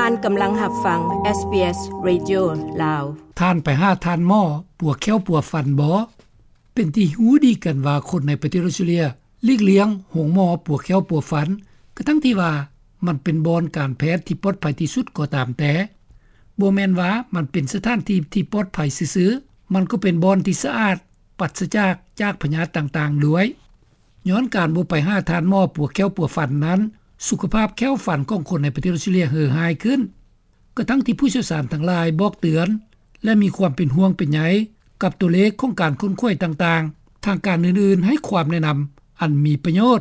ທ່ານກຳລັງຮັບຟັງ ເອສບີເອສ ເຣດິໂອ ລາວ. ທ່ານໄປຫາທ່ານໝໍປົວແຂ້ວປົວຟັນບໍ່? ເປັນທີ່ຮູ້ດີກັນວ່າຄົນໃນປະເທດອອສເຕຣເລັຽຫຼີກລ່ຽງໂຮງໝໍປົວແຂ້ວປົວຟັນ ກະທັງທີ່ວ່າມັນເປັນບ່ອນການແພດທີ່ປອດໄພທີ່ສຸດກໍຕາມແຕ່. ບໍ່ແມ່ນວ່າມັນເປັນສະຖານທີ່ທີ່ປອດໄພຊື່ໆ, ມັນກໍເປັນບ່ອນທີ່ສະອາດ, ປັດສະຈາກ ຈາກພະຍາດຕ່າງໆດ້ວຍ. ຍ້ອນການບໍ່ໄປຫາທ່ານໝໍປົວແຂ້ວປົວຟັນນັ້ນ, ສຸຂະພາບແຂ້ວຟັນຂອງຄົນໃນປະເທດອອສເຕຣເລັຽເຫີຮ້າຍຂຶ້ນ. ກະທັງທີ່ຜູ້ຊ່ຽວຊານທັງຫຼາຍບອກເຕືອນ ແລະ ມີຄວາມເປັນຫ່ວງເປັນໃຍກັບຕົວເລກຂອງການຂົນຂວາຍຕ່າງໆ, ທາງການອື່ນໆໃຫ້ຄວາມແນະນຳອັນມີປະໂຫຍດ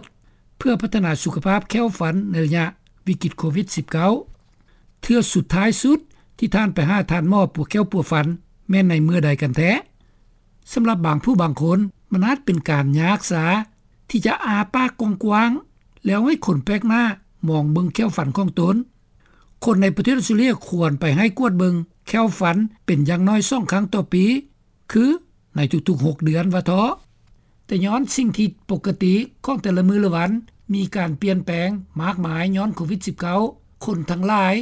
ເພື່ອພັດທະນາສຸຂະພາບແຂ້ວຟັນໃນໄລຍະວິກິດໂຄວິດສິບເກົ້າ. ເທື່ອສຸດທ້າຍສຸດທີ່ທ່ານໄປຫາທ່ານໝໍປົວແຂ້ວປົວຟັນ ແມ່ນໃນເມື່ອໃດກັນແທ້? ສຳລັບບາງຜູ້ບາງຄົນ, ມັນອາດເປັນການຍາກຊາທີ່ຈະອ້າປາກກວ້າງໆ ແລ້ວໃຫ້ຄົນແປກໜ້າມອງເບິ່ງແຂ້ວຟັນຂອງຕົນ. ຄົນໃນປະເທດອອສເຕຣເລັຽຄວນໄປໃຫ້ກວດເບິ່ງແຂ້ວຟັນເປັນຢ່າງໜ້ອຍສອງຄັ້ງຕໍ່ປີ, ຄືໃນທຸກໆຫົກເດືອນວ່າເທາະ. ແຕ່ຍ້ອນສິ່ງທີ່ປົກກະຕິຂອງແຕ່ລະມື້ລະວັນມີການປ່ຽນແປງມາກມາຍຍ້ອນໂຄວິດສິບເກົ້າ, ຄົນທັງຫຼາຍ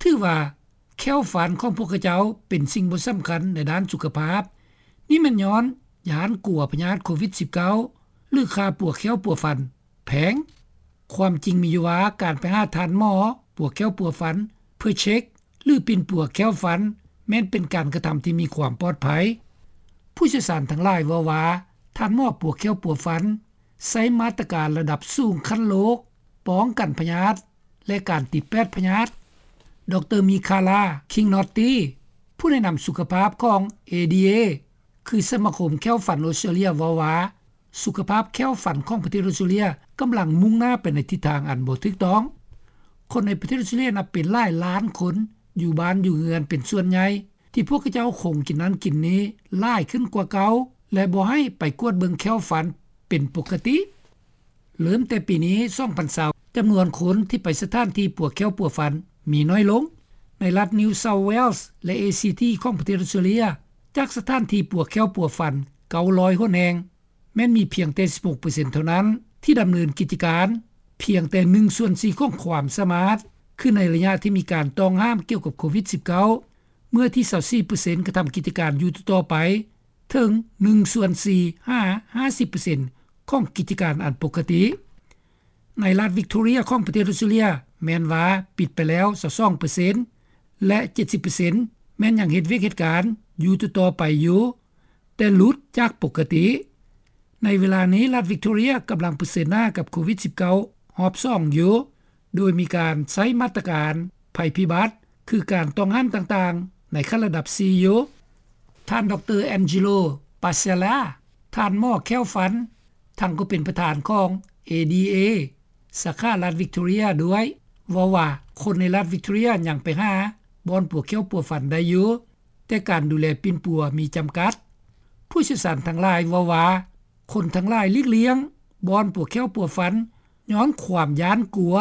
ຖືວ່າ ແຂ້ວຟັນຂອງພວກເຂົາເຈົ້າເປັນສິ່ງບໍ່ສຳຄັນໃນດ້ານສຸຂະພາບ. ນີ້ແມ່ນຍ້ອນຢ້ານກົວພະຍາດໂຄວິດສິບເກົ້າ ຫຼື ຄ່າປົວແຂ້ວປົວຟັນແພງ. ຄວາມຈິງມີຢູ່ວ່າ ການໄປຫາທ່ານໝໍປົວແຂ້ວປົວຟັນເພື່ອເຊັກ ຫຼື ປິ່ນປົວແຂ້ວຟັນ ແມ່ນເປັນການກະທຳທີ່ມີຄວາມປອດໄພ. ຜູ້ຊ່ຽວຊານທັງຫຼາຍເວົ້າວ່າ ທ່ານໝໍປົວແຂ້ວປົວຟັນໃຊ້ມາດຕະການລະດັບສູງຂັ້ນໂລກ ປ້ອງກັນພະຍາດ ແລະ ການຕິດແປດພະຍາດ. ດຣ. ມີຄາລາ ຄິງນອດຕີ ຜູ້ແນະນຳສຸຂະພາບຂອງ ເອດີເອ ຄືສະມາຄົມແຂ້ວຟັນອອສເຕຣເລັຽ ເວົ້າວ່າ ສຸຂະພາບແຂ້ວຟັນຂອງປະເທດອອສເຕຣເລັຽກຳລັງມຸ່ງໜ້າໄປໃນທິດທາງອັນບໍ່ຖືກຕ້ອງ. ຄົນໃນປະເທດອອສເຕຣເລັຽນັບເປັນຫຼາຍລ້ານຄົນ ຢູ່ບ້ານຢູ່ເຮືອນເປັນສ່ວນໃຫຍ່ ທີ່ພວກເຂົາເຈົ້າຄົງກິນນັ້ນກິນນີ້ຫຼາຍຂຶ້ນກວ່າເກົ່າ ແລະ ບໍ່ໃຫ້ໄປກວດເບິ່ງແຂ້ວຟັນເປັນປົກກະຕິ. ເລີ່ມແຕ່ປີນີ້ ສອງພັນຊາວ ຈຳນວນຄົນທີ່ໄປສະຖານທີ່ປົວແຂ້ວປົວຟັນມີໜ້ອຍລົງ. ໃນລັດ New South Wales ແລະ ເອຊີທີ ຂອງປະເທດອອສເຕຣເລັຽ ຈາກສະຖານທີ່ປົວແຂ້ວປົວຟັນເກົ້າຮ້ອຍຫົນແຫ່ງ ແມ່ນມີພຽງແຕ່ສິບຫົກເປີເຊັນເທົ່ານັ້ນທີ່ດຳເນີນກິດຈະການ, ພຽງແຕ່ໜຶ່ງສ່ວນສີ່ຂອງຄວາມສາມາດ, ຄືໃນໄລຍະທີ່ມີການຕ້ອງຫ້າມກ່ຽວກັບໂຄວິດສິບເກົ້າ ເມື່ອທີຊາວສີ່ເປີເຊັນກະທຳກິດຈະການຢູ່ຕໍ່ໆໄປ ເຖິງໜຶ່ງສ່ວນສີ່ຫາຫ້າສິບເປີເຊັນຂອງກິດຈະການອັນປົກກະຕິ. ໃນລັດວິກຕໍເຣຍຂອງປະເທດອອສເຕຣເລັຽ ແມ່ນວ່າປິດໄປແລ້ວຊາວສອງເປີເຊັນ ແລະ ເຈັດສິບເປີເຊັນແມ່ນຍັງເຮັດວຽກເຮັດການຢູ່ຕໍ່ໆໄປຢູ່ ແຕ່ຫຼຸດຈາກປົກກະຕິ. ໃນເວລານີ້ ລັດວິກຕໍເຣຍກຳລັງປະເຊີນໜ້າກັບໂຄວິດສິບເກົ້າຮອບສອງຢູ່ ໂດຍມີການໃຊ້ມາດຕະການໄພພິບັດ ຄືການຕ້ອງຫ້າມຕ່າງໆ ໃນຂັ້ນລະດັບສີ່ຢູ່. ທ່ານ ດຣ. ແອນເຈໂລ ປາເຊລາ ທ່ານໝໍແຂ້ວຟັນ ທັງກໍເປັນປະທານຂອງ ເອດີເອ ສາຂາລັດວິກຕໍເຣຍດ້ວຍ ເວົ້າວ່າ ຄົນໃນລັດວິກຕໍເຣຍຍັງໄປຫາບ່ອນປົວແຂ້ວປົວຟັນໄດ້ຢູ່, ແຕ່ການດູແລປິ່ນປົວມີຈຳກັດ. ຜູ້ຊ່ຽວຊານທັງຫຼາຍເວົ້າວ່າ ຄົນທັງຫຼາຍຫຼີກລ່ຽງບ່ອນປົວແຂ້ວປົວຟັນ ຍ້ອນຄວາມຢ້ານກົວ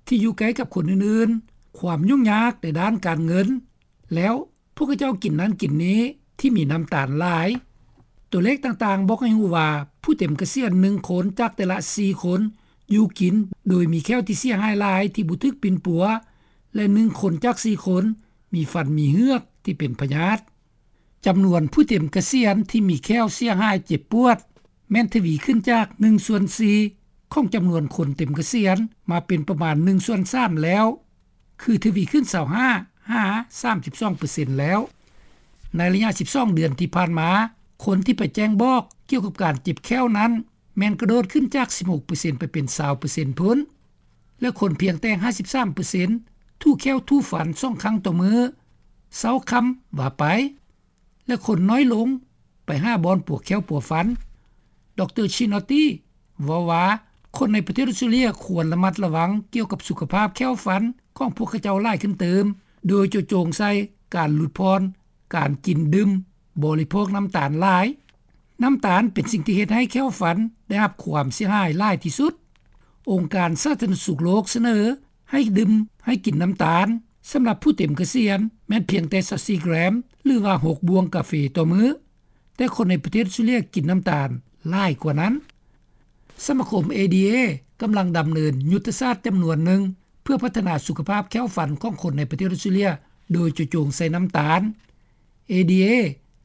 ທີ່ຢູ່ໃກ້ກັບຄົນອື່ນໆ, ຄວາມຫຍຸ້ງຍາກໃນດ້ານການເງິນ ແລ້ວພວກເຂົາເຈົ້າກິນນັ້ນກິນນີ້ທີ່ມີນ້ຳຕານຫຼາຍ. ຕົວເລກຕ່າງໆບອກໃຫ້ຮູ້ວ່າ ຜູ້ເຕັມກະສຽນໜຶ່ງຄົນຈາກແຕ່ລະສີ່ຄົນຢູ່ກິນໂດຍມີແຂ້ວທີ່ເສຍຫາຍຫຼາຍທີ່ບໍ່ຖືກປິ່ນປົວ ແລະ ໜຶ່ງຄົນຈາກສີ່ຄົນມີຟັນມີເຫືອກທີ່ເປັນພະຍາດ. ຈຳນວນຜູ້ເຕັມກະສຽນທີ່ມີແຂ້ວເສຍຫາຍເຈັບປວດ ແມ່ນທະວີຂຶ້ນຈາກໜຶ່ງສ່ວນສີ່ຂອງຈຳນວນຄົນເຕັມກະສຽນ ມາເປັນປະມານໜຶ່ງສ່ວນສາມແລ້ວ, ຄືທະວີຂຶ້ນຊາວຫ້າຫາສາມສິບສອງເປີເຊັນແລ້ວ. ໃນໄລຍະສິບສອງເດືອນທີ່ຜ່ານມາ, ຄົນທີ່ໄປແຈ້ງບອກກ່ຽວກັບການເຈັບແຂ້ວນັ້ນ ແມ່ນກະໂດດຂຶ້ນຈາກສິບຫົກເປີເຊັນໄປເປັນຊາວເປີເຊັນພຸ້ນ, ແລະ ຄົນພຽງແຕ່ຫ້າສິບສາມເປີເຊັນຖູແຂ້ວຖູຟັນສອງຄັ້ງຕໍ່ມື້, ເຊົ້າຄ່ຳວ່າໄປ. ແລະ ຄົນນ້ອຍລົງໄປຫາບ່ອນປົວແຂ້ວປົວຟັນ. ດຣ. ຊິນອດຕີ ເວົ້າວ່າ ຄົນໃນປະເທດອອສເຕຣເລັຽຄວນລະມັດລະວັງກ່ຽວກັບສຸຂະພາບແຂ້ວຟັນຂອງພວກເຂົາເຈົ້າຫຼາຍຂຶ້ນເຕີມ, ໂດຍເຈາະຈົງໃສ່ການຫຼຸດຜ່ອນການກິນດື່ມ, ບໍລິໂພກນ້ຳຕານຫຼາຍ. ນ້ຳຕານເປັນສິ່ງທີ່ເຮັດໃຫ້ແຂ້ວຟັນໄດ້ຮັບຄວາມເສຍຫາຍຫຼາຍທີ່ສຸດ. ອົງການສາທາລະນະສຸກໂລກສະເໜີໃຫ້ດື່ມ, ໃຫ້ກິນນ້ຳຕານ ສຳລັບຜູ້ເຕັມກະສຽນແມ່ນພຽງແຕ່ຊາວສີ່ແກຣມ ຫຼືວ່າຫົກບ່ວງກາເຟຕໍ່ມື້, ແຕ່ຄົນໃນປະເທດອອສເຕຣເລັຽກິນນ້ຳຕານຫຼາຍກວ່ານັ້ນ. ສະມາຄົມ ເອດີເອ ກຳລັງດຳເນີນຍຸດທະສາດຈຳນວນໜຶ່ງ ເ ພື່ອພັດທະນາສຸຂະພາບແຂ້ວຟັນຂອງຄົນໃນປະເທດອອສເຕຣເລັຽ ໂດຍເຈາະຈົງໃສ່ນ້ຳຕານ. ເອດີເອ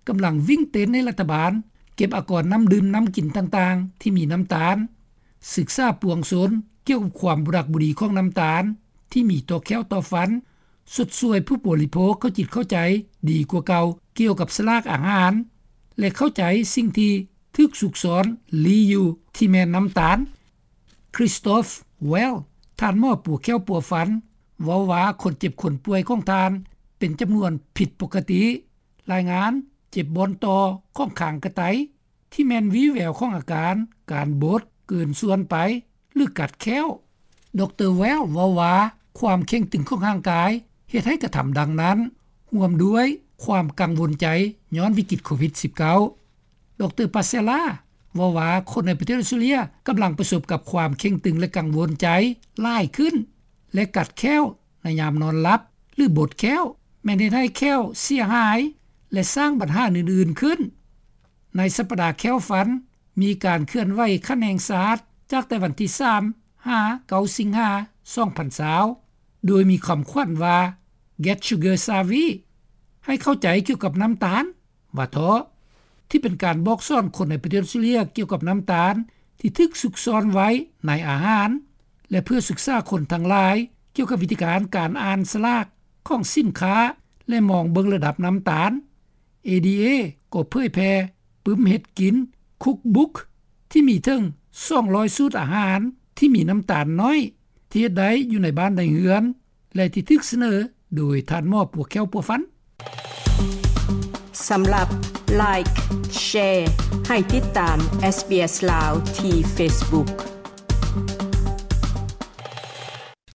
ກຳລັງວິ່ງເຕັ້ນໃຫ້ລັດຖະບານເກັບອາກອນນ້ຳດື່ມນ້ຳກິນຕ່າງໆທີ່ມີນ້ຳຕານ, ສຶກສາປວງຊົນກ່ຽວກັບຄວາມບໍ່ດັກບໍ່ດີຂອງນ້ຳຕານທີ່ມີຕໍ່ແຂ້ວຕໍ່ຟັນ, ຊົດຊ່ວຍຜູ້ບໍລິໂພກເຂົ້າຈິດເຂົ້າໃຈດີກວ່າເກົ່າກ່ຽວກັບສະຫຼາກອາຫານ ແລະ ເຂົ້າໃຈສິ່ງທີ່ຖືກຊຸກຊ້ອນລີ້ຢູ່ທີ່ແມ່ນນ້ຳຕານ. Christoph Wall ທ່ານໝໍປົວແຂ້ວປົວຟັນ ເວົ້າວ່າຄົນເຈັບຄົນປ່ວຍຂອງທ່ານເປັນຈຳນວນຜິດປົກກະຕິ. ລາຍງານເຈັບບ່ອນຕໍ່ຂອງຄາງກະໄຕ ທີ່ແມ່ນວີ່ແວວຂອງອາການການບົດເກີນສ່ວນໄປ ຫຼື ກັດແຂ້ວ. ດຣ Wall ເວົ້າວ່າຄວາມເຄັ່ງຕຶງຂອງຮ່າງກາຍເຮັດໃຫ້ກະທຳດັ່ງນັ້ນ ຮ່ວມດ້ວຍຄວາມກັງວົນໃຈຍ້ອນວິກິດໂຄວິດ-19. ດຣ Passella ເວົ້າວ່າຄົນໃນປະເທດອອສເຕຣເລັຽກຳລັງປະສົບກັບຄວາມເຄັ່ງຕຶງ ແລະ ກັງວົນໃຈຫຼາຍຂຶ້ນ ແລະ ກັດແຂ້ວໃນຍາມນອນຫຼັບ ຫຼື ບົດແຂ້ວ ແມ່ນເຮັດໃຫ້ແຂ້ວເສຍຫາຍ ແລະ ສ້າງບັນຫາອື່ນໆຂຶ້ນ. ໃນສັບປະດາແຂ້ວຟັນ ມີການເຄື່ອນໄຫວຂັ້ນແຫ່ງຊາດ ຈາກແຕ່ວັນທີສາມ ຫາ ເກົ້າ ສິງຫາ ສອງພັນຊາວ ໂດຍມີຄຳຂວັນວ່າ Get Sugar Savvy ໃຫ້ເຂົ້າໃຈກ່ຽວກັບນ້ຳຕານ ວ່າເທາະ ທີ່ເປັນການບອກສອນຄົນໃນປະເທດອອສເຕຣເລັຽກ່ຽວກັບນ້ຳຕານທີ່ຖືກຊຸກຊ້ອນໄວ້ໃນອາຫານ ແລະ ເພື່ອສຶກສາຄົນທັງຫຼາຍກ່ຽວກັບວິທີການການອ່ານສະຫຼາກຂອງສິນຄ້າ ແລະ ມອງເບິ່ງລະດັບນ້ຳຕານ. ເອດີເອ ກໍເຜີຍແຜ່ປຶ້ມເຮັດກິນ Cookbook ທີ່ມີເຖິງສອງຮ້ອຍສູດອາຫານທີ່ມີນ້ຳຕານໜ້ອຍ ທີ່ເຮັດໄດ້ຢູ່ໃນບ້ານໃນເຮືອນ ແລະ ທີ່ຖືກສະເໜີໂດຍທ່ານໝໍປົວແຂ້ວປົວຟັນ. ສຳລັບ Like Share ໃຫ້ຕິດຕາມ SBS ລາວ ທີ່ Facebook.